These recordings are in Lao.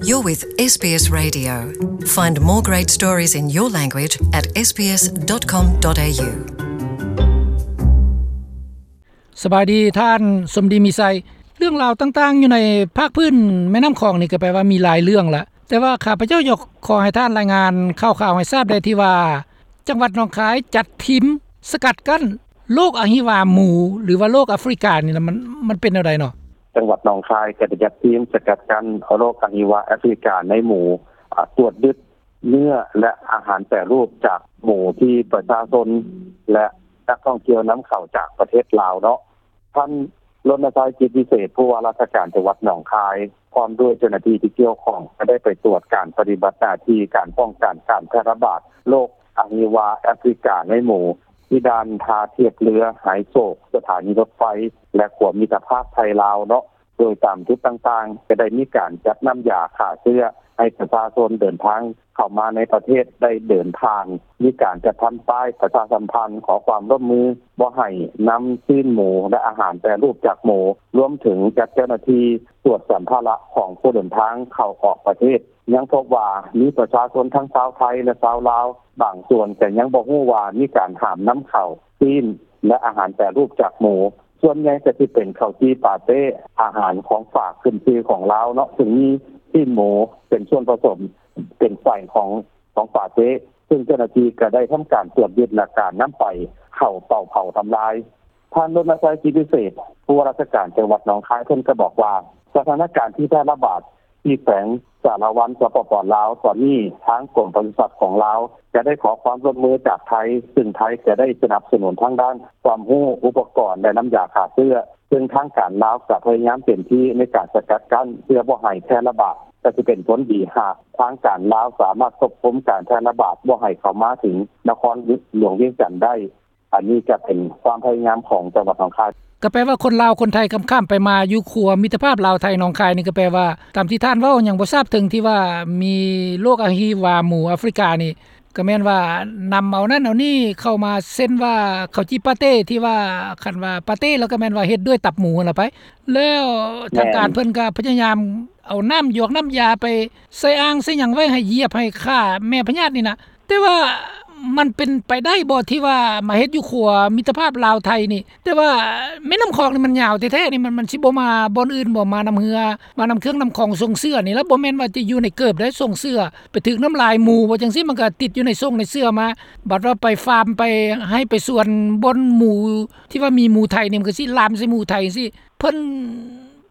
You're with SBS Radio. Find more great stories in your language at sbs.com.au. ສະບາຍດີທ່ານສົມດີມີໄຊ. ເລື່ອງລາວຕ່າງໆຢູ່ໃນພາກພື້ນແມ່ນ້ຳຂອງນີ້ກໍແປວ່າມີຫຼາຍເລື່ອງລະ, ແຕ່ວ່າຂ້າພະເຈົ້າຢາກຂໍໃຫ້ທ່ານລາຍງານຂ່າວໆໃຫ້ຊາບແດ່ທີ່ວ່າ ຈັງຫວັດໜອງຄາຍຈັດທີມສະກັດກັ້ນໂລກອະຫິວາໝູ ຫຼືວ່າໂລກອາຟຣິການີ້ນະ ມັນ ມັນເປັນແນວໃດເນາະ? ຈັງຫວັດໜອງຄາຍກໍໄດ້ຈັດທີມສະກັດກັ້ນໂລກອະຫິວາແອຟຣິກາໃນໝູ ອາ ກວດຍຶດເນື້ອ ແລະ ອາຫານແປຮູບຈາກໝູທີ່ປະຊາຊົນ ແລະ ນັກທ່ອງທ່ຽວນຳເຂົ້າຈາກປະເທດລາວເນາະ. ທ່ານ ລົນນະໄຊ ຈິດວິເສດ ຜູ້ວ່າລາຊະການຈັງຫວັດໜອງຄາຍ ພ້ອມດ້ວຍເຈົ້າໜ້າທີ່ທີ່ກ່ຽວຂ້ອງ ກໍໄດ້ໄປກວດການປະຕິບັດໜ້າທີ່ການປ້ອງກັນການແຜ່ລະບາດໂລກອະຫິວາແອຟຣິກາໃນໝູ ທີ່ດ່ານທ່າທຽບເຮືອໄຮໂສກ ສະຖານີລົດໄຟ ແລະ ຂົວມິດຕະພາບໄທລາວເນາະ. ໂດຍຕາມຈຸດຕ່າງໆ ກໍໄດ້ມີການຈັດນ້ຳຢາຂ້າເຊື້ອໃຫ້ປະຊາຊົນເດີນທາງເຂົ້າມາໃນປະເທດໄດ້ເດີນຜ່ານ, ມີການຈັດທຳປ້າຍປະຊາສຳພັນຂໍຄວາມຮ່ວມມືບໍ່ໃຫ້ນຳຊີ້ນໝູ ແລະ ອາຫານແປຮູບຈາກໝູ, ລວມເຖິງຈັດເຈົ້າໜ້າທີ່ກວດສຳພາລະຂອງຜູ້ເດີນທາງເຂົ້າອອກປະເທດ. ຍັງພົບວ່າມີປະຊາຊົນທັງຊາວໄທ ແລະ ຊາວລາວ ບາງສ່ວນກໍຍັງບໍ່ຮູ້ວ່າມີການຫ້າມນຳເຂົ້າຊີ້ນ ແລະ ອາຫານແປຮູບຈາກໝູ. ສ່ວນໃຫຍ່ກໍຊິເປັນເຂົ້າຈີ່ປາເຕ້, ອາຫານຂອງຝາກຂຶ້ນຊື່ຂອງລາວເນາະ, ຊຶ່ງມີຊີ້ນໝູເປັນສ່ວນປະສົມ ເປັນໄສ້ຂອງ ຂອງປາເຕ້, ຊຶ່ງເຈົ້າໜ້າທີ່ກໍໄດ້ທຳການກວດຍຶດ ແລະ ການນຳໄປເຜົາ ເປົ່າເຜົາທຳລາຍ. ທ່ານ ລົນນະໄຊ ຈິດວິເສດ ຜູ້ວ່າລາຊະການຈັງຫວັດໜອງຄາຍ ເພິ່ນກໍບອກວ່າ ສະຖານະການທີ່ແຜ່ລະບາດ ທີ່ແຂວງສາລະວັນ ສປປ ລາວ ຕອນນີ້ທາງກົມປະສຸສັດຂອງລາວ ຈະໄດ້ຂໍຄວາມຮ່ວມມືຈາກໄທ, ຊຶ່ງໄທຈະໄດ້ສະໜັບສະໜູນທາງດ້ານຄວາມຮູ້, ອຸປະກອນ ແລະ ນ້ຳຢາຂ້າເຊື້ອ, ຊຶ່ງທາງການລາວຈະພະຍາຍາມເຕັມທີ່ໃນການສະກັດກັ້ນ ເພື່ອບໍ່ໃຫ້ແຜ່ລະບາດ, ກໍຈະເປັນຜົນດີຫາກທາງການລາວສາມາດຄວບຄຸມການແຜ່ລະບາດບໍ່ໃຫ້ເຂົ້າມາເຖິງນະຄອນຫຼວງວຽງຈັນໄດ້. ອັນນີ້ຈະເປັນຄວາມພະຍາຍາມຂອງຈັງຫວັດໜອງຄາຍ. ກໍແປວ່າຄົນລາວຄົນໄທຂ້າມໆໄປມາຢູ່ຂົວມິດຕະພາບລາວໄທໜອງຄາຍນີ້ ກໍແປວ່າຕາມທີ່ທ່ານເວົ້າຍັງບໍ່ຊາບເຖິງທີ່ວ່າມີໂລກອະຫິວາໝູອາຟຣິການີ້ ກໍແມ່ນວ່ານຳເອົານັ້ນເອົານີ້ເຂົ້າມາ ເຊັ່ນວ່າເຂົ້າຈີ່ປາເຕ້ ທີ່ວ່າຄັນວ່າປາເຕ້ແລ້ວກໍແມ່ນວ່າເຮັດດ້ວຍຕັບໝູຫັ້ນລະໄປ. ແລ້ວທາງການເພິ່ນກໍພະຍາຍາມເອົານ້ຳຢອກນ້ຳຢາໄປໃສ່ອ່າງໃສ່ຫຍັງໄວ້ໃຫ້ຢຽບໃຫ້ຂ້າແມ່ພະຍາດນີ້ນະ. ແຕ່ວ່າມັນເປັນໄປໄດ້ບໍ່ທີ່ວ່າມາເຮັດຢູ່ຂົວມິດຕະພາບລາວໄທນີ້? ແຕ່ວ່າແມ່ນ້ຳຂອງນີ້ມັນຍາວແທ້ໆນີ້ ມັນ ມັນຊິບໍ່ມາບ່ອນອື່ນບໍ່? ມານຳເຮືອ ມານຳເຄື່ອງນຳຂອງສົ່ງເຊື້ອນີ້ລະ ບໍ່ແມ່ນວ່າຈະຢູ່ໃນເກີບໄດ້ ສົ່ງເຊື້ອໄປຖືກນ້ຳລາຍໝູບໍ່ ຈັ່ງຊີ້ມັນກໍຕິດຢູ່ໃນສົ່ງໃນເຊື້ອມາ. ບັດວ່າໄປຟາມ ໄປໄຮ່ໄປສວນບ່ອນໝູ ທີ່ວ່າມີໝູໄທນີ້ ມັນກໍຊິລາມໃສ່ໝູໄທຈັ່ງຊີ້. ເພິ່ນ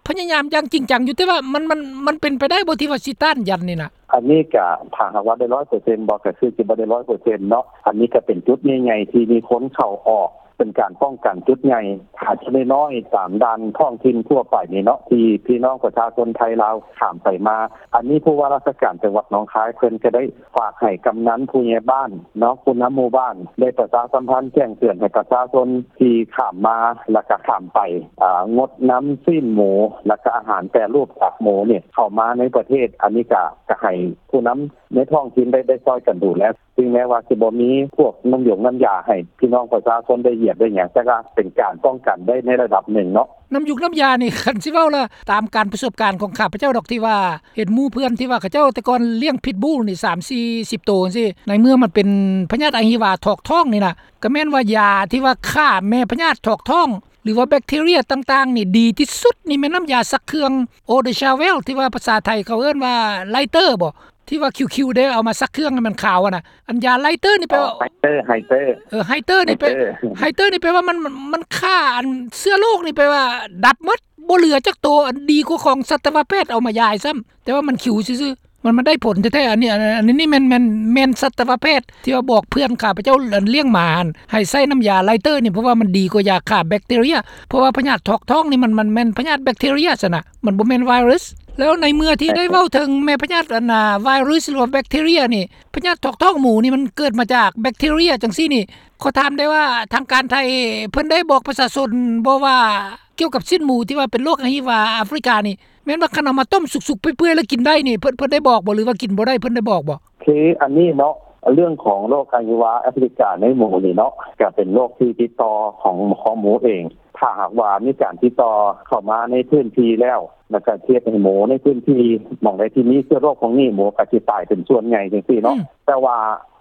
ພະຍາຍາມຢ່າງຈິງຈັງຢູ່ ແຕ່ວ່າມັນ ມັນ ມັນເປັນໄປໄດ້ບໍ່ທີ່ວ່າຊິຕ້ານຢັນນີ້ນະ? ອັນນີ້ກະ ຖ້າຫາກວ່າໄດ້ຮ້ອຍເປີເຊັນບໍ່ ກະຄືຊິບໍ່ໄດ້ຮ້ອຍເປີເຊັນເນາະ. ອັນນີ້ກະເປັນຈຸດໃຫຍ່ໆທີ່ມີຄົນເຂົ້າອອກ ເປັນການປ້ອງກັນຈຸດໃຫຍ່. ຖ້າຈຸດນ້ອຍໆຕາມດ່ານທ້ອງຖິ່ນທົ່ວໄປນີ້ເນາະ ທີ່ພີ່ນ້ອງປະຊາຊົນໄທລາວຂ້າມໄປມາ, ອັນນີ້ຜູ້ວ່າລາຊະການຈັງຫວັດໜອງຄາຍ ເພິ່ນກະໄດ້ ຝາກໃຫ້ກຳນັນ, ຜູ້ໃຫຍ່ບ້ານເນາະ, ຜູ້ນຳໝູ່ບ້ານ ໄດ້ປະຊາສຳພັນແຈ້ງເຕືອນໃຫ້ປະຊາຊົນທີ່ຂ້າມມາ ແລ້ວກະຂ້າມໄປ ອາ ງົດນຳຊີ້ນໝູ ແລ້ວກະອາຫານແປຮູບຈາກໝູນີ້ເຂົ້າມາໃນປະເທດ. ອັນນີ້ກະ ກະໃຫ້ຜູ້ນຳໃນທ້ອງຖິ່ນໄດ້ ໄດ້ຊ່ອຍກັນດູແລ, ເຖິງແມ້ວ່າຊິບໍ່ມີພວກນ້ຳຢົງນ້ຳຢາໃຫ້ພີ່ນ້ອງປະຊາຊົນໄດ້ຢຽບໄດ້ຫຍັງ, ແຕ່ກະເປັນການປ້ອງກັນໄດ້ໃນລະດັບໜຶ່ງເນາະ. ນ້ຳຢູກນ້ຳຢານີ້ ຄັນຊິເວົ້າລະ ຕາມການປະສົບການຂອງຂ້າພະເຈົ້າດອກ ທີ່ວ່າເຫັນໝູ່ເພື່ອນທີ່ວ່າເຂົາເຈົ້າແຕ່ກ່ອນລ້ຽງພິດບູນີ້ ສາມ ສີ່ ສິບໂຕຈັ່ງຊີ້ ໃນເມື່ອມັນເປັນພະຍາດອະຫິວາຖອກທ້ອງນີ້ນະ ກໍແມ່ນວ່າຢາທີ່ວ່າຂ້າແມ່ພະຍາດຖອກທ້ອງ ຫຼືວ່າແບັກທີເຣຍຕ່າງໆນີ້ ດີທີ່ສຸດນີ້ແມ່ນນ້ຳຢາຊັກເຄື່ອງ Eau de Javel ທີ່ວ່າພາສາໄທເຂົາເອີ້ນວ່າໄລເຕີບໍ ທີ່ວ່າຄິວໆເດ້ ເອົາມາຊັກເຄື່ອງໃຫ້ມັນຂາວຫັ້ນນະ. ອັນຢາໄລເຕີນີ້ແປວ່າ ອໍ ໄຮເຕີ ໄຮເຕີ ເອີ ໄຮເຕີນີ້ແປ ໄຮເຕີ ໄຮເຕີນີ້ແປວ່າມັນ ມັນ ມັນຂ້າອັນເຊື້ອໂລກນີ້ແປວ່າດັບໝົດ ບໍ່ເຫຼືອຈັກໂຕ ອັນດີກວ່າຂອງສັດຕະວະແພດເອົາມາຢາຍຊ້ຳ ແຕ່ວ່າມັນຂິວຊື່ໆ ມັນ ມັນໄດ້ຜົນແທ້ໆ. ອັນນີ້ ອັນ ອັນນີ້ແມ່ນ ແມ່ນ ແມ່ນສັດຕະວະແພດທີ່ວ່າບອກເພື່ອນຂ້າພະເຈົ້າ ອັນລ້ຽງໝາຫັ້ນ ໃຫ້ໃຊ້ນ້ຳຢາໄລເຕີນີ້ ເພາະວ່າມັນດີກວ່າຢາຂ້າແບັກທີເຣຍ ເພາະວ່າພະຍາດຖອກທ້ອງນີ້ ມັນ ມັນແມ່ນພະຍາດແບັກທີເຣຍຊັ້ນນະ ມັນບໍ່ແມ່ນໄວຣັສ. ແລ້ວໃນເມື່ອທີ່ໄດ້ເວົ້າເຖິງແມ່ພະຍາດ ອັນນາ ໄວຣັສ ຫຼືວ່າແບັກທີເຣຍນີ້ ພະຍາດຖອກທ້ອງໝູນີ້ມັນເກີດມາຈາກແບັກທີເຣຍຈັ່ງຊີ້ນີ້ ຂໍຖາມໄດ້ວ່າທາງການໄທເພິ່ນໄດ້ບອກປະຊາຊົນບໍ່ວ່າກ່ຽວກັບຊີ້ນໝູທີ່ວ່າເປັນໂລກອະຫິວາອາຟຣິການີ້ ແມ່ນວ່າຄັນເອົາມາຕົ້ມສຸກໆເປື່ອຍໆແລ້ວກິນໄດ້ນີ້ ເພິ່ນ ເພິ່ນໄດ້ບອກບໍ່ ຫຼືວ່າກິນບໍ່ໄດ້ ເພິ່ນໄດ້ບອກບໍ່? ຄືອັນນີ້ເນາະ ເລື່ອງຂອງໂລກອະຫິວາອາຟຣິກາໃນໝູນີ້ເນາະ ກະເປັນໂລກທີ່ຕິດຕໍ່ຂອງ ຂອງໝູເອງ. ຖ້າຫາກວ່າມີການຕິດຕໍ່ເຂົ້າມາໃນພື້ນທີ່ແລ້ວ ແລ້ວກໍເຮັດໃຫ້ໝູໃນພື້ນທີ່ ໝ່ອງໃດທີ່ມີເຊື້ອໂລກພວກນີ້ ໝູກໍຊິຕາຍເປັນສ່ວນໃຫຍ່ຈັ່ງຊີ້ເນາະ. ອືມ ແຕ່ວ່າ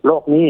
ໂລກນີ້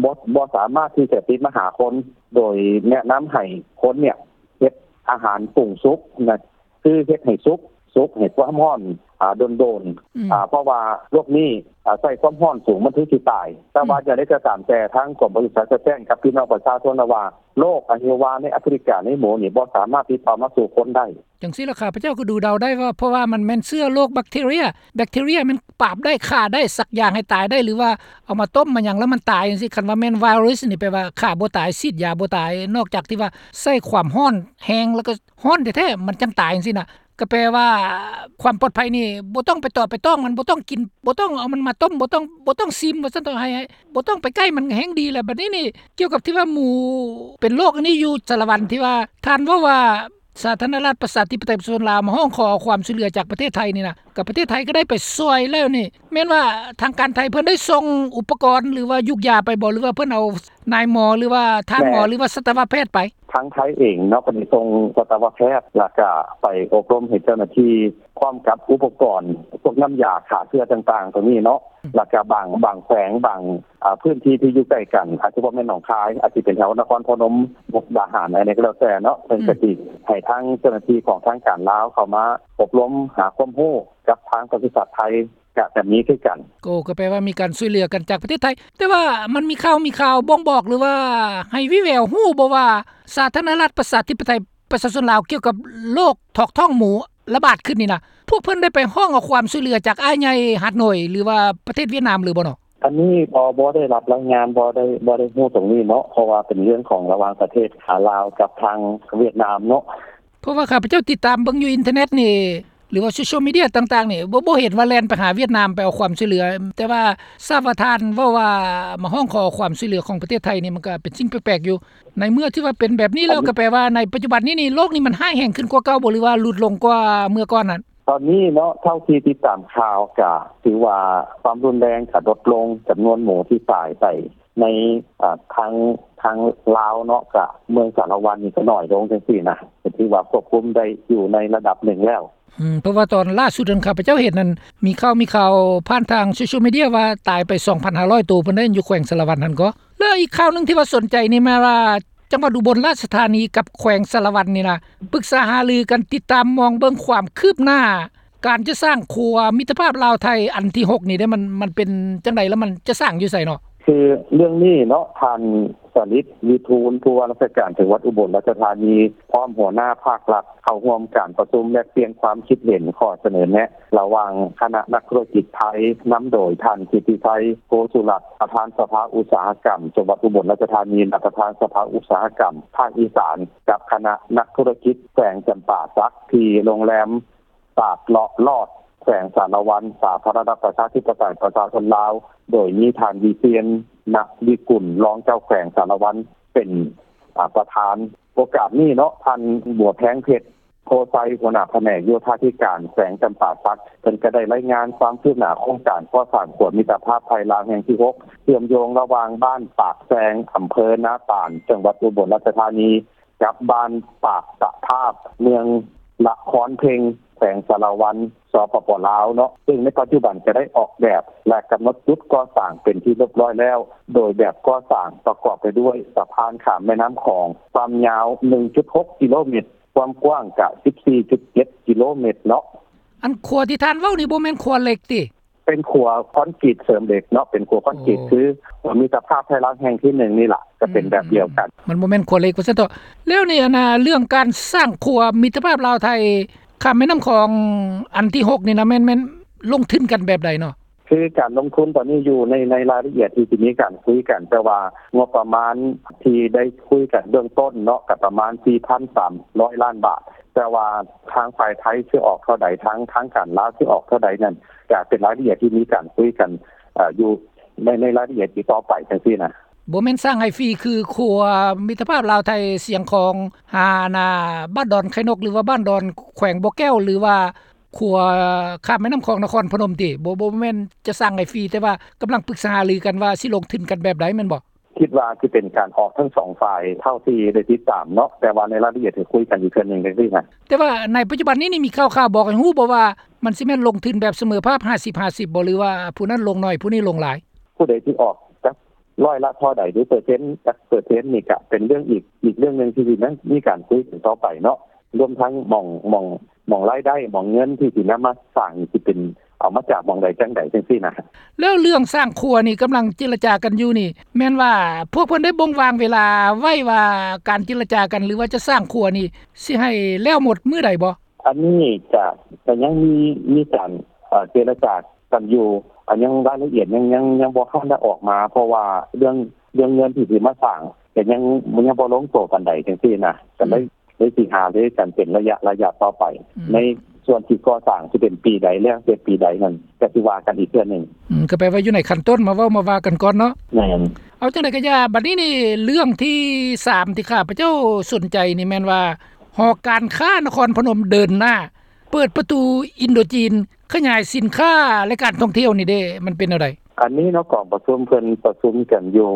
ບໍ່ ບໍ່ສາມາດທີ່ຈະຕິດມາຫາຄົນ ໂດຍແນະນຳໃຫ້ຄົນເນຍເຮັດອາຫານປຸງສຸກນະ ຄືເຮັດໃຫ້ສຸກ ສຸກໃຫ້ຄວາມຮ້ອນ ອ່າ ດົນໆ ອືມ ອ່າ ເພາະວ່າໂລກນີ້ ອ່າ ໃຊ້ຄວາມຮ້ອນສູງ ມັນເຖິງຊິຕາຍ. ແຕ່ວ່າ ອືມ ຢ່າງໃດກໍຕາມແຕ່ ທາງກົມປະສຸສັດກໍແຈ້ງກັບພີ່ນ້ອງປະຊາຊົນແລ້ວວ່າ ໂລກອະຫິວາໃນອາຟຣິກາໃນໝູນີ້ ບໍ່ສາມາດຕິດຕໍ່ມາສູ່ຄົນໄດ້. ຈັ່ງຊີ້ລະ ຂ້າພະເຈົ້າກໍດູເດົາໄດ້ວ່າ ເພາະວ່າມັນແມ່ນເຊື້ອໂລກແບັກທີເຣຍ ແບັກທີເຣຍມັນປາບໄດ້ ຂ້າໄດ້ ສັກຢາໃຫ້ຕາຍໄດ້ ຫຼືວ່າເອົາມາຕົ້ມມາຫຍັງແລ້ວມັນຕາຍຈັ່ງຊີ້. ຄັນວ່າແມ່ນໄວຣັສນີ້ ແປວ່າຂ້າບໍ່ຕາຍ ສີດຢາບໍ່ຕາຍ ນອກຈາກທີ່ວ່າໃຊ້ຄວາມຮ້ອນແຮງ ແລ້ວກໍຮ້ອນແທ້ໆ ມັນຈັ່ງຕາຍຈັ່ງຊີ້ນະ. ກໍແປວ່າຄວາມປອດໄພນີ້ ບໍ່ຕ້ອງໄປຕອບໄປຕ້ອງມັນ ບໍ່ຕ້ອງກິນ ບໍ່ຕ້ອງເອົາມັນມາຕົ້ມ ບໍ່ຕ້ອງ ບໍ່ຕ້ອງຊິມວ່າຊັ້ນເຖາະ ໃຫ້ ໃຫ້ ບໍ່ຕ້ອງໄປໃກ້ມັນ ແຮງດີແລ້ວ. ບັດນີ້ນີ້ ກ່ຽວກັບທີ່ວ່າໝູເປັນໂລກອັນນີ້ຢູ່ສາລະວັນ ທີ່ວ່າທ່ານເວົ້າວ່າ ສາທາລະນະລັດປະຊາທິປະໄຕປະຊາຊົນລາວມາຮ້ອງຂໍເອົາຄວາມຊ່ວຍເຫຼືອຈາກປະເທດໄທນີ້ນະ ກໍປະເທດໄທກໍໄດ້ໄປຊ່ວຍແລ້ວນີ້ ແມ່ນວ່າທາງການໄທເພິ່ນໄດ້ສົ່ງອຸປະກອນ ຫຼືວ່າຢູກຢາໄປບໍ່ ຫຼືວ່າເພິ່ນເອົານາຍໝໍ ຫຼືວ່າທ່ານໝໍ ແມ່ນ ຫຼືວ່າສັດຕະວະແພດໄປ? ທາງໄທເອງເນາະ ກໍໄດ້ສົ່ງສັດຕະວະແພດ ແລ້ວກໍໄປອົບຮົມໃຫ້ເຈົ້າໜ້າທີ່ ພ້ອມກັບອຸປະກອນ ພວກນ້ຳຢາຂ້າເຊື້ອຕ່າງໆ ຕົວນີ້ເນາະ ອືມ ແລ້ວກໍບາງ ບາງແຂວງ ບາງ ອ່າ ພື້ນທີ່ທີ່ຢູ່ໃກ້ກັນ ອາດຈະບໍ່ແມ່ນໜອງຄາຍ ອາດຈະເປັນແຖວນະຄອນພະນົມ ມຸກດາຫານ ອັນໃດກໍແລ້ວແຕ່ເນາະ ເພິ່ນ ອືມ ກໍຊິໃຫ້ທາງເຈົ້າໜ້າທີ່ຂອງທາງການລາວເຂົ້າມາອົບຮົມ ຫາຄວາມຮູ້ກັບທາງປະສຸສັດໄທ ກໍ ກໍມີຄືກັນ. ໂອ້ ກໍແປວ່າມີການຊ່ວຍເຫຼືອກັນຈາກປະເທດໄທ. ແຕ່ວ່າມັນມີຂ່າວ ມີຂ່າວບົ່ງບອກ ຫຼືວ່າໃຫ້ວີແວວຮູ້ບໍ່ວ່າ ສາທາລະນະລັດປະຊາທິປະໄຕປະຊາຊົນລາວ ກ່ຽວກັບໂລກຖອກທ້ອງໝູລະບາດຂຶ້ນນີ້ນະ ພວກເພິ່ນໄດ້ໄປຮ້ອງເອົາຄວາມຊ່ວຍເຫຼືອຈາກອ້າຍໃຫຍ່ຫາດນ້ອຍ ຫຼືວ່າປະເທດຫວຽດນາມຫຼືບໍ່ເນາະ? ອັນນີ້ບໍ່ ບໍ່ໄດ້ຮັບລາຍງານ ບໍ່ໄດ້ ບໍ່ໄດ້ຮູ້ຕົງນີ້ເນາະ ເພາະວ່າເປັນເລື່ອງຂອງລະຫວ່າງປະເທດ ອາ ລາວກັບທາງຫວຽດນາມເນາະ. ເພາະວ່າຂ້າພະເຈົ້າຕິດຕາມເບິ່ງຢູ່ອິນເຕີເນັດນີ້ ຫຼືວ່າໂຊຊຽວມີເດຍຕ່າງໆນີ້ ບໍ່ ບໍ່ເຫັນວ່າແລ່ນໄປຫາຫວຽດນາມໄປເອົາຄວາມຊ່ວຍເຫຼືອ ແຕ່ວ່າຊາບວ່າທ່ານເວົ້າວ່າມາຮ້ອງຂໍຄວາມຊ່ວຍເຫຼືອຂອງປະເທດໄທນີ້ ມັນກໍເປັນສິ່ງແປກໆຢູ່. ໃນເມື່ອທີ່ວ່າເປັນແບບນີ້ແລ້ວ ອັນນີ້ ກໍແປວ່າໃນປັດຈຸບັນນີ້ນີ້ ໂລກນີ້ມັນຮ້າຍແຮງຂຶ້ນກວ່າເກົ່າບໍ່ ຫຼືວ່າຫຼຸດລົງກວ່າເມື່ອກ່ອນນັ້ນ? ຕອນນີ້ເນາະ ເທົ່າທີ່ຕິດຕາມຂ່າວ ກະຖືວ່າຄວາມຮຸນແຮງກະລົດລົງ ຈຳນວນໝູທີ່ຕາຍໄປໃນ ອາ ທາງ ທາງລາວເນາະ ກະເມືອງສາລະວັນນີ້ກະໜ້ອຍລົງຈັ່ງຊີ້ນະ ກະຖືວ່າຄວບຄຸມໄດ້ຢູ່ໃນລະດັບໜຶ່ງແລ້ວ. ອືມ ເພາະວ່າຕອນລ່າສຸດນັ້ນ ຂ້າພະເຈົ້າເຫັນນັ້ນ ມີຂ່າວ ມີຂ່າວຜ່ານທາງໂຊຊຽວມີເດຍວ່າຕາຍໄປສອງພັນຫ້າຮ້ອຍໂຕ ເພິ່ນໄດ້ຢູ່ແຂວງສາລະວັນຫັ້ນກໍ. ແລ້ວອີກຂ່າວໜຶ່ງທີ່ວ່າສົນໃຈນີ້ແມ່ນວ່າ ຈັງຫວັດອຸບົນລາຊະທານີກັບແຂວງສາລະວັນນີ້ນະ ປຶກສາຫາລືກັນ ຕິດຕາມມອງເບິ່ງຄວາມຄືບໜ້າ ການຈະສ້າງຂົວມິດຕະພາບລາວໄທອັນທີຫົກນີ້ເດ້ ມັນ ມັນເປັນຈັ່ງໃດ ແລ້ວມັນຈະສ້າງຢູ່ໃສເນາະ? ຄືເລື່ອງນີ້ເນາະ ທ່ານ ສະລິດ ວິທູນ ຜູ້ວ່າລາຊະການຈັງຫວັດອຸບົນລາຊະທານີ ພ້ອມຫົວໜ້າພາກລັດ ເຂົ້າຮ່ວມການປະຊຸມແລກປ່ຽນຄວາມຄິດເຫັນ ຂໍ້ສະເໜີແນະ ລະຫວ່າງຄະນະນັກທຸລະກິດໄທ ນຳໂດຍທ່ານ ກິດຕິໄຊ ໂກສຸລັດ ປະທານສະພາອຸດສາຫະກຳຈັງຫວັດອຸບົນລາຊະທານີ ແລະ ປະທານສະພາອຸດສາຫະກຳພາກອີສານ ກັບຄະນະນັກທຸລະກິດແຂວງຈຳປາສັກ ທີ່ໂຮງແຮມ ຕາດເລາະລອດ ແຂວງສາລະວັນ ສາທາລະນະລັດປະຊາທິປະໄຕປະຊາຊົນລາວ ໂດຍມີທ່ານ ວິຊຽນ ນະວິກຸນ ຮອງເຈົ້າແຂວງສາລະວັນ ເປັນ ອາ ປະທານ. ໂອກາດນີ້ເນາະ ທ່ານ ບົວແພງເພັດ ໂພໄຊ ຫົວໜ້າພະແນກໂຍທາທິການແຂວງຈຳປາສັກ ເພິ່ນກໍໄດ້ລາຍງານຄວາມຄືບໜ້າໂຄງການກໍ່ສ້າງຂົວມິດຕະພາບໄທລາວແຫ່ງທີຫົກ ເຊື່ອມໂຍງລະຫວ່າງບ້ານປາກແຊງ ອຳເພີນາຕານ ຈັງຫວັດອຸບົນລາຊະທານີ ກັບບ້ານປາກຕະພາບ ເມືອງລະຄອນເພັງ ແຂວງສາລະວັນ ສປປ ລາວ ເນາະ ຊຶ່ງໃນປັດຈຸບັນກໍໄດ້ອອກແບບ ແລະ ກຳນົດຈຸດກໍ່ສ້າງເປັນທີ່ຮຽບຮ້ອຍແລ້ວ ໂດຍແບບກໍ່ສ້າງປະກອບໄປດ້ວຍສະພານຂ້າມແມ່ນ້ຳຂອງ ຄວາມຍາວໜຶ່ງຈຸດຫົກກິໂລແມັດ ຄວາມກວ້າງກະສິບສີ່ຈຸດເຈັດກິໂລແມັດເນາະ. ອັນຂົວທີ່ທ່ານເວົ້ານີ້ບໍ່ແມ່ນຂົວເຫຼັກຕິ? ເປັນຂົວຄອນກຣີດເສີມເຫຼັກເນາະ ເປັນຂົວຄອນກຣີດ ໂອ້ ຄື ມິດຕະພາບໄທລາວແຫ່ງທີໜຶ່ງນີ້ລະ ກໍເປັນແບບດຽວກັນ ອືມ ມັນບໍ່ແມ່ນຂົວເຫຼັກວ່າຊັ້ນເຖາະ. ແລ້ວນີ້ ອັນນ່າ ເລື່ອງການສ້າງຂົວມິດຕະພາບລາວໄທ ຂ້າມແມ່ນ້ຳຂອງອັນທີຫົກນີ້ນະ ແມ່ນ ແມ່ນລົງທຶນກັນແບບໃດເນາະ? ຄືການລົງທຶນຕອນນີ້ຢູ່ໃນ ໃນລາຍລະອຽດທີ່ ທີ່ມີການຄຸຍກັນ ແຕ່ວ່າງົບປະມານທີ່ໄດ້ຄຸຍກັນເບື້ອງຕົ້ນເນາະ ກໍປະມານສີ່ພັນສາມຮ້ອຍລ້ານບາດ ແຕ່ວ່າທາງຝ່າຍໄທຊິອອກເທົ່າໃດ ທາງ ທາງການລາວຊິອອກເທົ່າໃດນັ້ນ ກໍເປັນລາຍລະອຽດທີ່ມີການຄຸຍກັນ ເອີ ຢູ່ໃນ ໃນລາຍລະອຽດທີ່ຕໍ່ໄປຈັ່ງຊີ້ນະ. ບໍ່ແມ່ນສ້າງໃຫ້ຟຣີ ຄືຂົວມິດຕະພາບລາວໄທຊຽງຂອງ ຫາ ອັນນ່າ ບ້ານດອນໄຂ່ນົກ ຫຼືວ່າບ້ານດອນ ແຂວງບໍ່ແກ້ວ ຫຼືວ່າຂົວຂ້າມແມ່ນ້ຳຂອງນະຄອນພະນົມຕິ? ບໍ່ ບໍ່ແມ່ນຈະສ້າງໃຫ້ຟຣີ ແຕ່ວ່າກຳລັງປຶກສາຫາລືກັນວ່າຊິລົງທຶນກັນແບບໃດແມ່ນບໍ່? ຄິດວ່າຊິເປັນການອອກທັງສອງຝ່າຍ ເທົ່າທີ່ໄດ້ຕິດຕາມເນາະ, ແຕ່ວ່າໃນລາຍລະອຽດຊິຄຸຍກັນອີກເທື່ອໜຶ່ງຈັ່ງຊີ້ນະ. ແຕ່ວ່າໃນປັດຈຸບັນນີ້ນີ້ມີຂ່າວໆບອກໃຫ້ຮູ້ບໍ່ວ່າ ມັນຊິແມ່ນລົງທຶນແບບສະເໝີພາບ ຫ້າສິບຫ້າສິບ ບໍ່ ຫຼືວ່າຜູ້ນັ້ນລົງໜ້ອຍ ຜູ້ນີ້ລົງຫຼາຍ? ຜູ້ໃດຊິອອກຈັກຮ້ອຍລະເທົ່າໃດ ຫຼືເປີເຊັນຈັກເປີເຊັນນີ້ ກະເປັນເລື່ອງອີກ ອີກເລື່ອງໜຶ່ງທີ່ຊິມີການຄຸຍກັນຕໍ່ໄປເນາະ, ລວມທັງໝ່ອງ ໝ່ອງ ໝ່ອງລາຍໄດ້ ໝ່ອງເງິນທີ່ຊິນຳມາສ້າງນີ້ ຊິເປັນເອົາມາຈາກໝ່ອງໃດຈັ່ງໃດຈັ່ງຊີ້ນະ. ແລ້ວເລື່ອງສ້າງຂົວນີ້ກຳລັງເຈລະຈາກັນຢູ່ນີ້ ແມ່ນວ່າພວກເພິ່ນໄດ້ບົ່ງວາງເວລາໄວ້ວ່າ ການເຈລະຈາກັນ ຫຼືວ່າຈະສ້າງຂົວນີ້ ຊິໃຫ້ແລ້ວໝົດມື້ໃດບໍ່? ອັນນີ້ກະ ກະຍັງມີ ມີການ ເອີ່ ເຈລະຈາກັນຢູ່, ອັນຍັງລາຍລະອຽດຍັງ ຍັງ ຍັງບໍ່ທັນໄດ້ອອກມາ ເພາະວ່າເລື່ອງ ເລື່ອງເງິນທີ່ຊິມາສ້າງ ກະຍັງ ຍັງບໍ່ລົງໂຕປານໃດຈັ່ງຊີ້ນະ, ກະເລີຍ ເລີຍຊິຫາລືກັນເປັນໄລຍະ ໄລຍະຕໍ່ໄປ. ອືມ ໃນສ່ວນທີ່ກໍ່ສ້າງຊິເປັນປີໃດ ແລ້ວແຕ່ປີໃດນັ້ນ ກະຊິວ່າກັນອີກເທື່ອໜຶ່ງ. ອືມ ກະແປວ່າຢູ່ໃນຂັ້ນຕົ້ນ ມາເວົ້າມາວ່າກັນກ່ອນເນາະ. ແມ່ນ. ເອົາ ຈັ່ງໃດກະຢ່າ ບັດນີ້ນີ້ ເລື່ອງທີສາມທີ່ຂ້າພະເຈົ້າສົນໃຈນີ້ແມ່ນວ່າ ຫໍການຄ້ານະຄອນພະນົມເດີນໜ້າ ເປີດປະຕູອິນໂດຈີນ ຂະຫຍາຍສິນຄ້າ ແລະ ການທ່ອງທ່ຽວນີ້ເດ້ ມັນເປັນແນວໃດ? ອັນນີ້ເນາະ ກອງປະຊຸມເພິ່ນປະຊຸມກັນຢູ່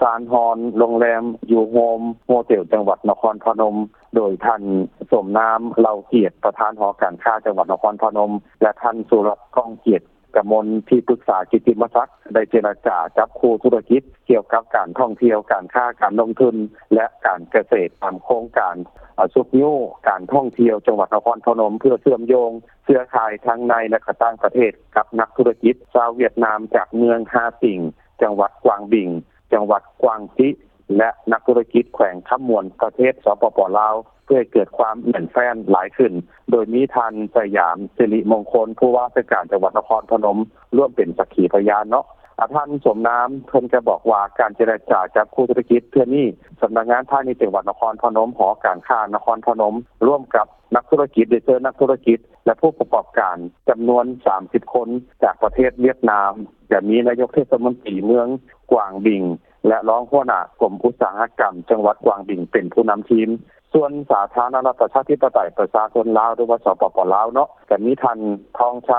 ຊານຮອນ ໂຮງແຮມ ຢູໂຮມ ໂຮເຕັວ ຈັງຫວັດນະຄອນພະນົມ ໂດຍທ່ານ ສົມນາມ ເຫຼົ່າກຽດ ປະທານຫໍການຄ້າຈັງຫວັດນະຄອນພະນົມ ແລະ ທ່ານ ສຸລັດ ກ້ອງກຽດ ກະມົນ ທີ່ປຶກສາກິດຕິມະສັກ ໄດ້ເຈລະຈາຈັບຄູ່ທຸລະກິດກ່ຽວກັບການທ່ອງທ່ຽວ, ການຄ້າ, ການລົງທຶນ ແລະ ການກະເສດ ຕາມໂຄງການ ອາ ຊຸກຍູ້ການທ່ອງທ່ຽວຈັງຫວັດນະຄອນພະນົມ ເພື່ອເຊື່ອມໂຍງເຄືອຂ່າຍທັງໃນ ແລະ ກະຕ່າງປະເທດ ກັບນັກທຸລະກິດຊາວຫວຽດນາມ ຈາກເມືອງຮາຕິງ ຈັງຫວັດກວາງບິງ ຈັງຫວັດກວາງຈິ ແລະ ນັກທຸລະກິດແຂວງຄຳມ່ວນ ປະເທດ ສປປ ລາວ ເພື່ອໃຫ້ເກີດຄວາມແໜ້ນແຟ້ນຫຼາຍຂຶ້ນ ໂດຍມີທ່ານ ສະຫຍາມ ສິລິມົງຄົນ ຜູ້ວ່າລາຊະການຈັງຫວັດນະຄອນພະນົມ ຮ່ວມເປັນສັກຂີພະຍານເນາະ. ອາ ທ່ານ ສົມນາມ ເພິ່ນກະບອກວ່າ ການເຈລະຈາຈັບຄູ່ທຸລະກິດເທື່ອນີ້ ສຳນັກງານພານິດຈັງຫວັດນະຄອນພະນົມ, ຫໍການຄ້ານະຄອນພະນົມ ຮ່ວມກັບນັກທຸລະກິດ ໄດ້ເຊີນນັກທຸລະກິດ ແລະ ຜູ້ປະກອບການຈຳນວນສາມສິບຄົນ ຈາກປະເທດຫວຽດນາມ, ຈະມີນາຍົກເທດສະມົນຕີເມືອງກວາງບິງ ແລະ ຮອງຫົວໜ້າກົມອຸດສາຫະກຳຈັງຫວັດກວາງບິງ ເປັນຜູ້ນຳທີມ. ສ່ວນສາທາລະນະລັດປະຊາທິປະໄຕປະຊາຊົນລາວ ຫຼືວ່າ ສປປ ລາວ ເນາະ, ກະມີທ່ານ ທອງໄຊ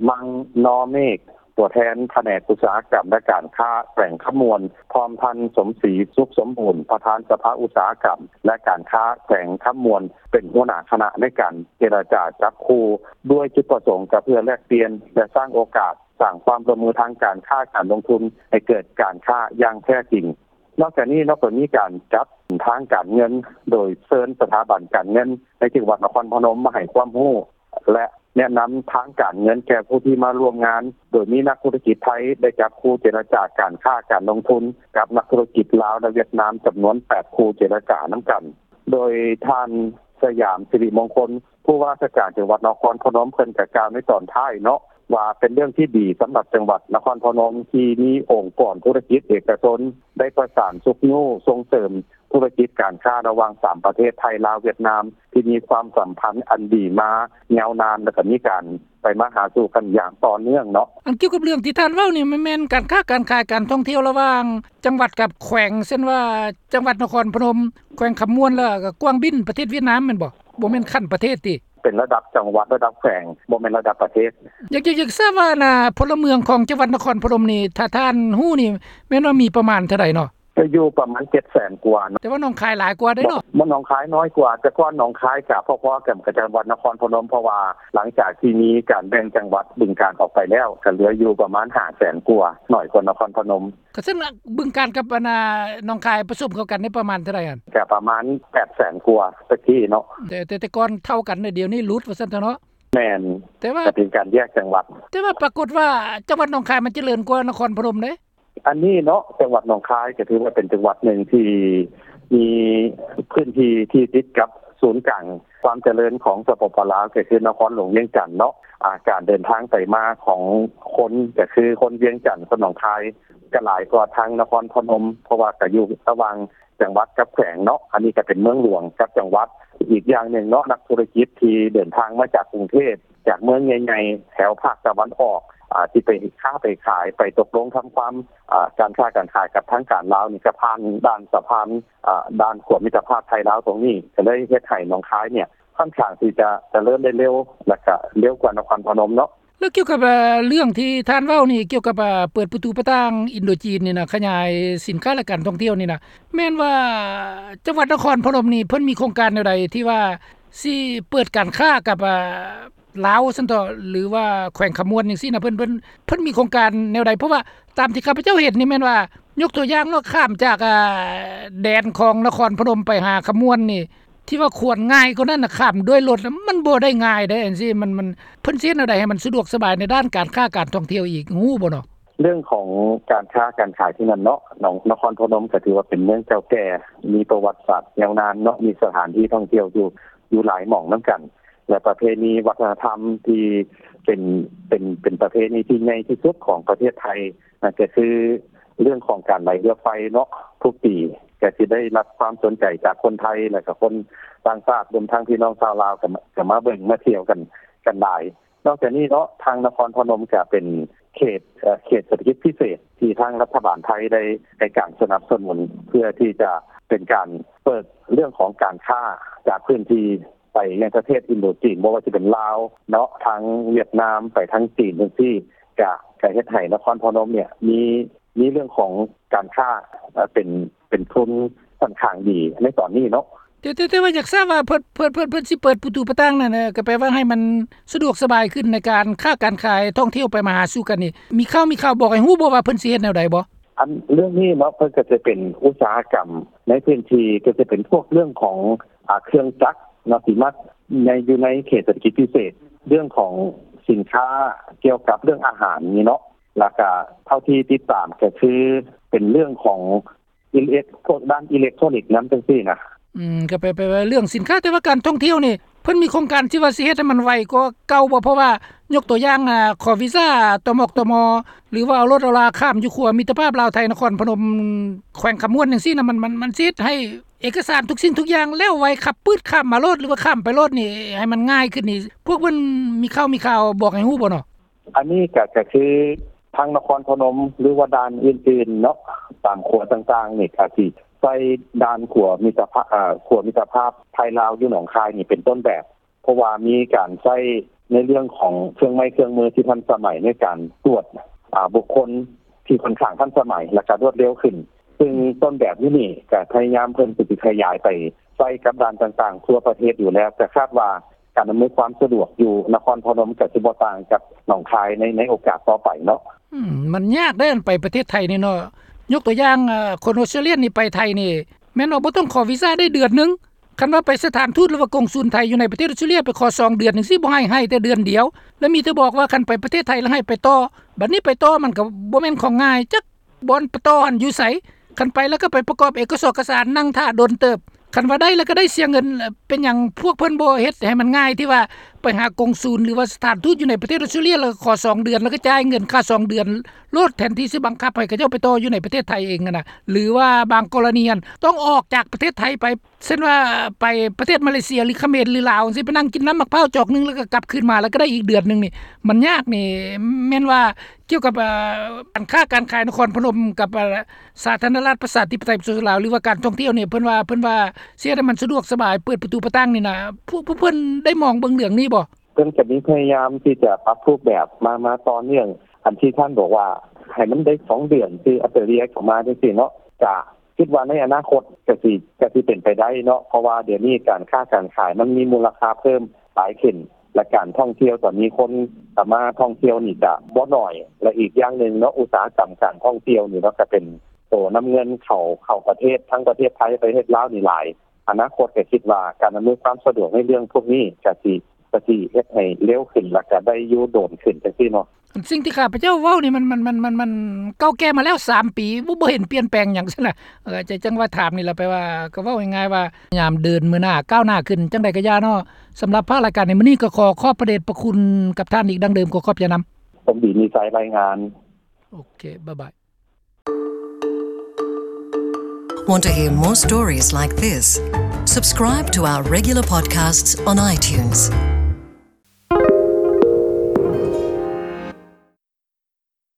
ມັງນໍເມກ ຕົວແທນພະແນກອຸດສາຫະກຳ ແລະ ການຄ້າແຂວງຄຳມ່ວນ, ພ້ອມທ່ານ ສົມສີ ສຸກສົມບູນ ປະທານສະພາອຸດສາຫະກຳ ແລະ ການຄ້າແຂວງຄຳມ່ວນ ເປັນຫົວໜ້າຄະນະໃນການເຈລະຈາຈັບຄູ່ ດ້ວຍຈຸດປະສົງກະເພື່ອແລກປ່ຽນ ແລະ ສ້າງໂອກາດ ສ້າງຄວາມຮ່ວມມືທາງການຄ້າການລົງທຶນ ໃຫ້ເກີດການຄ້າຢ່າງແທ້ຈິງ. ນອກຈາກນີ້ເນາະ ກໍມີການຈັດທາງການເງິນ ໂດຍເຊີນສະຖາບັນການເງິນໃນຈັງຫວັດນະຄອນພະນົມມາໃຫ້ຄວາມຮູ້ ແລະ ແນະນຳທາງການເງິນແກ່ຜູ້ທີ່ມາຮ່ວມງານ, ໂດຍມີນັກທຸລະກິດໄທໄດ້ຈັບຄູ່ເຈລະຈາການຄ້າການລົງທຶນກັບນັກທຸລະກິດລາວ ແລະ ຫວຽດນາມ ຈຳນວນແປດຄູ່ເຈລະຈານຳກັນ. ໂດຍທ່ານ ສະຫຍາມ ສິລິມົງຄົນ ຜູ້ວ່າລາຊະການຈັງຫວັດນະຄອນພະນົມ ເພິ່ນກະກ່າວໃນຕອນທ້າຍເນາະ ວ່າເປັນເລື່ອງທີ່ດີສຳລັບຈັງຫວັດນະຄອນພະນົມ ທີ່ມີອົງກອນທຸລະກິດເອກະຊົນ ໄດ້ປະສານຊຸກຍູ້ສົ່ງເສີມທຸລະກິດການຄ້າລະຫວ່າງສາມປະເທດ ໄທ ລາວ ຫວຽດນາມ ທີ່ມີຄວາມສຳພັນອັນດີມາຍາວນານ ແລະ ກະມີການໄປມາຫາສູ່ກັນຢ່າງຕໍ່ເນື່ອງເນາະ. ອັນກ່ຽວກັບເລື່ອງທີ່ທ່ານເວົ້ານີ້ ມັນແມ່ນການຄ້າການຂາຍ ການທ່ອງທ່ຽວລະຫວ່າງຈັງຫວັດກັບແຂວງ ເຊັ່ນວ່າ ຈັງຫວັດນະຄອນພະນົມ, ແຂວງຄຳມ່ວນ ແລ້ວກະກວາງບິນ ປະເທດຫວຽດນາມແມ່ນບໍ່? ບໍ່ແມ່ນຂັ້ນປະເທດຕິ? ເປັນລະດັບຈັງຫວັດ ລະດັບແຂວງ ບໍ່ແມ່ນລະດັບປະເທດ. ຢາກ ຢາກ ຢາກຊາບວ່າ ອັນນ່າ ພົນລະເມືອງຂອງຈັງຫວັດນະຄອນພະນົມນີ້ ຖ້າທ່ານຮູ້ນີ້ ແມ່ນວ່າມີປະມານເທົ່າໃດເນາະ? ກະຢູ່ປະມານເຈັດແສນກວ່າເນາະ. ແຕ່ວ່າໜອງຄາຍຫຼາຍກວ່າເດ້ເນາະ. ໜອງ ໜອງຄາຍນ້ອຍກວ່າ, ແຕ່ກ່ອນໜອງຄາຍກະພໍໆກັນກັບຈັງຫວັດນະຄອນພະນົມ ເພາະວ່າຫຼັງຈາກທີ່ມີການແບ່ງຈັງຫວັດບຶງການອອກໄປແລ້ວ ກະເຫຼືອຢູ່ປະມານຫ້າແສນກວ່າ, ໜ້ອຍກວ່ານະຄອນພະນົມ. ກະເຊັ່ນບຶງການກັບ ອັນນ່າ ໜອງຄາຍປະສົມເຂົ້າກັນນີ້ປະມານເທົ່າໃດຫັ້ນ? ກະປະມານແປດແສນກວ່າແຕ່ກີ້ເນາະ. ແຕ່ ແຕ່ ແຕ່ກ່ອນເທົ່າກັນ ດຽວນີ້ຫຼຸດວ່າຊັ້ນເຖາະເນາະ. ແມ່ນ. ແຕ່ວ່າ ກະເປັນການແຍກຈັງຫວັດ. ແຕ່ວ່າປາກົດວ່າ ຈັງຫວັດໜອງຄາຍມັນຈະເລີນກວ່ານະຄອນພະນົມເດ້. ອັນນີ້ເນາະ ຈັງຫວັດໜອງຄາຍກະຖືວ່າເປັນຈັງຫວັດໜຶ່ງທີ່ມີພື້ນທີ່ທີ່ຕິດກັບສູນກາງຄວາມຈະເລີນຂອງ ສປປ ລາວ ກະຄືນະຄອນຫຼວງວຽງຈັນເນາະ. ອາ ການເດີນທາງໄປມາຂອງຄົນ ກະຄືຄົນວຽງຈັນ ຄົນໜອງຄາຍ ກະຫຼາຍກວ່າທາງນະຄອນພະນົມ ເພາະວ່າກະຢູ່ລະຫວ່າງ ຈັງຫວັດກັບແຂວງເນາະ, ອັນນີ້ກະເປັນເມືອງຫຼວງກັບຈັງຫວັດ. ອີກຢ່າງໜຶ່ງເນາະ ນັກທຸລະກິດທີ່ເດີນທາງມາຈາກກຸງເທບ ຈາກເມືອງໃຫຍ່ໆ ແຖວພາກຕາວັນອອກ ອາ ທີ່ໄປຄ້າໄປຂາຍ ໄປຕົກລົງທຳຄວາມ ອາ ການຄ້າການຂາຍກັບທາງການລາວນີ້ ກະຜ່ານດ່ານສະພານ ອາ ດ່ານຂົວມິດຕະພາບໄທລາວຕົງນີ້ ກະເລີຍເຮັດໃຫ້ໜອງຄາຍນີ້ ຂ້ອນຂ້າງທີ່ຈະຈະເລີນໄດ້ເລັວ ແລະກະເລັວກວ່ານະຄອນພະນົມເນາະ. ແລ້ວກ່ຽວກັບ ເອີ ເລື່ອງທີ່ທ່ານເວົ້ານີ້ ກ່ຽວກັບ ເອີ ເປີດປະຕູປະຕ່າງອິນໂດຈີນນີ້ນະ ຂະຫຍາຍສິນຄ້າ ແລະ ການທ່ອງທ່ຽວນີ້ນະ ແມ່ນວ່າຈັງຫວັດນະຄອນພະນົມນີ້ ເພິ່ນມີໂຄງການແນວໃດທີ່ວ່າຊິເປີດການຄ້າກັບ ເອີ ລາວຊັ້ນເຖາະ ຫຼືວ່າແຂວງຄຳມ່ວນຈັ່ງຊີ້ນະ ເພິ່ນ ເພິ່ນ ເພິ່ນມີໂຄງການແນວໃດ? ເພາະວ່າຕາມທີ່ຂ້າພະເຈົ້າເຫັນນີ້ແມ່ນວ່າ ຍົກຕົວຢ່າງເນາະ ຂ້າມຈາກ ເອີ ແດນຂອງນະຄອນພະນົມໄປຫາຄຳມ່ວນນີ້ ທີ່ວ່າຄວນງ່າຍກວ່ານັ້ນນະ ຂ້າມດ້ວຍລົດນະ ມັນບໍ່ໄດ້ງ່າຍເດ້ ຈັ່ງຊີ້ ມັນ ມັນ ເພິ່ນຊິເຮັດແນວໃດໃຫ້ມັນສະດວກສະບາຍໃນດ້ານການຄ້າການທ່ອງທ່ຽວອີກ ຮູ້ບໍ່ເນາະ? ເລື່ອງຂອງການຄ້າການຂາຍທີ່ນັ້ນເນາະ ນະຄອນພະນົມກໍຖືວ່າເປັນເມືອງເກົ່າແກ່ ມີປະຫວັດສາດຍາວນານເນາະ ມີສະຖານທີ່ທ່ອງທ່ຽວຢູ່ ຢູ່ຫຼາຍໝ່ອງນຳກັນ ແລະ ປະເພນີວັດທະນະທຳທີ່ເປັນ ເປັນ ເປັນປະເພນີທີ່ໃຫຍ່ທີ່ສຸດຂອງປະເທດໄທ ນັ້ນກໍຄືເລື່ອງຂອງການໄຫຼເຮືອໄຟເນາະ ທຸກປີກໍຊິໄດ້ຮັບຄວາມສົນໃຈຈາກຄົນໄທ ແລະ ກະຄົນຕ່າງຊາດ ລວມທັງພີ່ນ້ອງຊາວລາວ ກໍ ກໍມາເບິ່ງມາທ່ຽວກັນ ກັນຫຼາຍ. ນອກຈາກນີ້ເນາະ ທາງນະຄອນພະນົມກໍເປັນເຂດ ເອີ ເຂດເສດຖະກິດພິເສດ ທີ່ທາງລັດຖະບານໄທໄດ້ໃຫ້ການສະໜັບສະໜູນ ເພື່ອທີ່ຈະເປັນການເປີດເລື່ອງຂອງການຄ້າຈາກພື້ນທີ່ ໄປຍັງປະເທດອິນໂດຈີນ ບໍ່ວ່າຈະເປັນລາວເນາະ ທາງຫວຽດນາມ ໄປທາງຈີນຈັ່ງຊີ້ ກະ ກະເຮັດໃຫ້ນະຄອນພະນົມເນ່ຍ ມີ ມີເລື່ອງຂອງການຄ້າ ເປັນ ເປັນທຶນຂ້ອນຂ້າງດີໃນຕອນນີ້ເນາະ. ແຕ່ ແຕ່ ແຕ່ວ່າຢາກຊາບວ່າເພິ່ນ ເພິ່ນ ເພິ່ນ ເພິ່ນຊິເປີດປະຕູປະຕ່າງນັ້ນ ເອີ ກໍແປວ່າໃຫ້ມັນສະດວກສະບາຍຂຶ້ນໃນການຄ້າການຂາຍ ທ່ອງທ່ຽວໄປມາຫາສູ່ກັນນີ້ ມີຂ່າວ ມີຂ່າວບອກໃຫ້ຮູ້ບໍ່ວ່າເພິ່ນຊິເຮັດແນວໃດບໍ່? ອັນເລື່ອງນີ້ເນາະ ເພິ່ນກໍຈະເປັນອຸດສາຫະກຳໃນພື້ນທີ່ ກໍຈະເປັນພວກເລື່ອງຂອງ ອາ ເຄື່ອງຈັກເນາະ ທີ່ມາໃນ ຢູ່ໃນເຂດເສດຖະກິດພິເສດ ເລື່ອງຂອງສິນຄ້າກ່ຽວກັບເລື່ອງອາຫານນີ້ເນາະ ແລ້ວກະເທົ່າທີ່ຕິດຕາມກໍຄືເປັນເລື່ອງຂອງອິເລັກ ພວກດ້ານອິເລັກໂທຣນິກນຳ ຈັ່ງຊີ້ນະ. ອືມ ກໍແປ ແປວ່າເລື່ອງສິນຄ້າ ແຕ່ວ່າການທ່ອງທ່ຽວນີ້ ເພິ່ນມີໂຄງການທີ່ວ່າຊິເຮັດໃຫ້ມັນໄວກວ່າເກົ່າບໍ່? ເພາະວ່າຍົກຕົວຢ່າງ ອາ ຂໍວີຊາ ຕມກ ຕມ ຫຼືວ່າເອົາລົດເອົາລາຂ້າມຢູ່ຂົວມິດຕະພາບລາວໄທ ນະຄອນພະນົມ ແຂວງຄຳມ່ວນຈັ່ງຊີ້ນະ ມັນ ມັນ ມັນຊິເຮັດໃຫ້ເອກະສານທຸກສິ່ງທຸກຢ່າງແລ້ວໄວ ຂັບປຶດຂ້າມມາໂລດ ຫຼືວ່າຂ້າມໄປໂລດນີ້ ໃຫ້ມັນງ່າຍຂຶ້ນນີ້ ພວກເພິ່ນມີຂ່າວ ມີຂ່າວບອກໃຫ້ຮູ້ບໍ່ເນາະ? ອັນນີ້ກະ ກະຄືທາງນະຄອນພະນົມ ຫຼືວ່າດ່ານອື່ນໆເນາະ ຕາມຂົວຕ່າງໆນີ້ ກະຊິໃຊ້ດ່ານຂົວມິດຕະພາບ ເອີ ຂົວມິດຕະພາບໄທລາວຢູ່ໜອງຄາຍນີ້ເປັນຕົ້ນແບບ ເພາະວ່າມີການໃຊ້ໃນເລື່ອງຂອງເຄື່ອງໄມ້ເຄື່ອງມືທີ່ທັນສະໄໝໃນການກວດ ອາ ບຸກຄົນທີ່ຂ້ອນຂ້າງທັນສະໄໝ ແລ້ວກະລວດເລັວຂຶ້ນ ຊຶ່ງຕົ້ນແບບຢູ່ນີ້ກະພະຍາຍາມເພິ່ນຊິຂະຫຍາຍໄປໃຊ້ກັບດ່ານຕ່າງໆທົ່ວປະເທດຢູ່ແລ້ວ ກະຄາດວ່າການອຳນວຍຄວາມສະດວກຢູ່ນະຄອນພະນົມກະຊິບໍ່ຕ່າງກັບໜອງຄາຍໃນ ໃນໂອກາດຕໍ່ໄປເນາະ. ອືມ ມັນຍາກເດ້ ໄປປະເທດໄທນີ້ເນາະ ຍົກຕົວຢ່າງ ອາ ຄົນອົດສະຕຣາລີຍນີ້ໄປໄທນີ້ ແມ່ນວ່າບໍ່ຕ້ອງຂໍວີຊາໄດ້ເດືອນໜຶ່ງ ຄັນວ່າໄປສະຖານທູດ ຫຼືວ່າກົງສູນໄທຢູ່ໃນປະເທດອົດສະຕຣາລີຍ ໄປຂໍສອງເດືອນຈັ່ງຊີ້ ບໍ່ໃຫ້ ໃຫ້ແຕ່ເດືອນດຽວ ແລ້ວມີແຕ່ບອກວ່າຄັນໄປປະເທດໄທແລ້ວໃຫ້ໄປຕໍ່ ບັດນີ້ໄປຕໍ່ມັນກໍບໍ່ແມ່ນຂອງງ່າຍ ຈັກບ່ອນໄປຕໍ່ຫັ້ນຢູ່ໃສ ຄັນໄປແລ້ວກໍໄປປະກອບເອກະສອກກະສານ ນັ່ງຖ້າດົນເຕີບ ຄັນວ່າໄດ້ແລ້ວກໍໄດ້ເສຍເງິນ ເປັນຫຍັງພວກເພິ່ນບໍ່ເຮັດໃຫ້ມັນງ່າຍ ທີ່ວ່າໄປຫາກົງສູນ ຫຼືວ່າສະຖານທູດຢູ່ໃນປະເທດອົດສະຕຣາລີຍ ແລ້ວກໍຂໍສອງເດືອນ ແລ້ວກໍຈ່າຍເງິນຄ່າສອງເດືອນໂລດ ແທນທີ່ຊິບັງຄັບໃຫ້ເຂົາເຈົ້າໄປຕໍ່ຢູ່ໃນປະເທດໄທເອງຫັ້ນນະ ຫຼືວ່າບາງກໍລະນີຫັ້ນ ຕ້ອງອອກຈາກປະເທດໄທໄປ ເຊັ່ນວ່າໄປປະເທດມາເລເຊຍ ຫຼືຂະເໝນ ຫຼືລາວຈັ່ງຊີ້ ໄປນັ່ງກິນນ້ຳໝາກພ້າວຈອກໜຶ່ງ ແລ້ວກໍກັບຄືນມາ ແລ້ວກໍໄດ້ອີກເດືອນໜຶ່ງນີ້ ມັນຍາກນີ້ ແມ່ນວ່າກ່ຽວກັບ ເອີ ການຄ້າການຂາຍນະຄອນພະນົມກັບ ເອີ ສາທາລະນະລັດປະຊາທິປະໄຕປະຊາຊົນລາວ ຫຼືວ່າການທ່ອງທ່ຽວນີ້ ເພິ່ນວ່າ ເພິ່ນວ່າຊິເຮັດໃຫ້ມັນສະດວກສະບາຍ ເປີດປະຕູປະຕ່າງນີ້ນະ ພວກ ພວກເພິ່ນໄດ້ມອງເບິ່ງເລື່ອງນີ້ບໍ່? ເພິ່ນກໍມີພະຍາຍາມທີ່ຈະປັບຮູບແບບມາ ມາຕໍ່ເນື່ອງ ອັນທີ່ທ່ານບອກວ່າໃຫ້ມັນໄດ້ສອງເດືອນ ຄືອອສເຕຣເລັຽເຂົ້າມາຈັ່ງຊີ້ເນາະ ກະຄິດວ່າໃນອະນາຄົດກະຊິ ກະຊິເປັນໄປໄດ້ເນາະ ເພາະວ່າດຽວນີ້ການຄ້າການຂາຍມັນມີມູນລະຄ່າເພີ່ມຫຼາຍຂຶ້ນ ແລະ ການທ່ອງທ່ຽວຕອນນີ້ ຄົນກໍມາທ່ອງທ່ຽວນີ້ກະບໍ່ໜ້ອຍ ແລະ ອີກຢ່າງໜຶ່ງເນາະ ອຸດສາຫະກຳການທ່ອງທ່ຽວນີ້ເນາະ ກະເປັນໂຕນຳເງິນເຂົ້າ ເຂົ້າປະເທດ ທັງປະເທດໄທ ປະເທດລາວນີ້ຫຼາຍ ອະນາຄົດກໍຄິດວ່າການອຳນວຍຄວາມສະດວກໃນເລື່ອງພວກນີ້ກະຊິ ກະຊິເຮັດໃຫ້ເລັວຂຶ້ນ ແລ້ວກະໄດ້ຢູ່ດົນຂຶ້ນຈັ່ງຊີ້ເນາະ. ສິ່ງທີ່ຂ້າພະເຈົ້າເວົ້ານີ້ ມັນ ມັນ ມັນ ມັນ ມັນເກົ່າແກ່ມາແລ້ວສາມປີ ບໍ່ ບໍ່ເຫັນປ່ຽນແປງຫຍັງຊັ້ນນະ ເອີ ຈັ່ງ ຈັ່ງວ່າຖາມນີ້ລະ ແປວ່າກໍເວົ້າງ່າຍໆວ່າ ຍາມເດີນມື້ໜ້າກ້າວໜ້າຂຶ້ນ ຈັ່ງໃດກໍຢ່າເນາະ. ສຳລັບພາກລາຍການໃນມື້ນີ້ ກໍຂໍຂອບພະເດດພະຄຸນກັບທ່ານອີກດັ່ງເດີມ ຂໍຂອບໃຈນຳ. ສົມດີມີໄຊ ລາຍງານ. ໂອເຄ ບາຍບາຍ. Want to hear more stories like this? Subscribe to our regular podcasts on iTunes.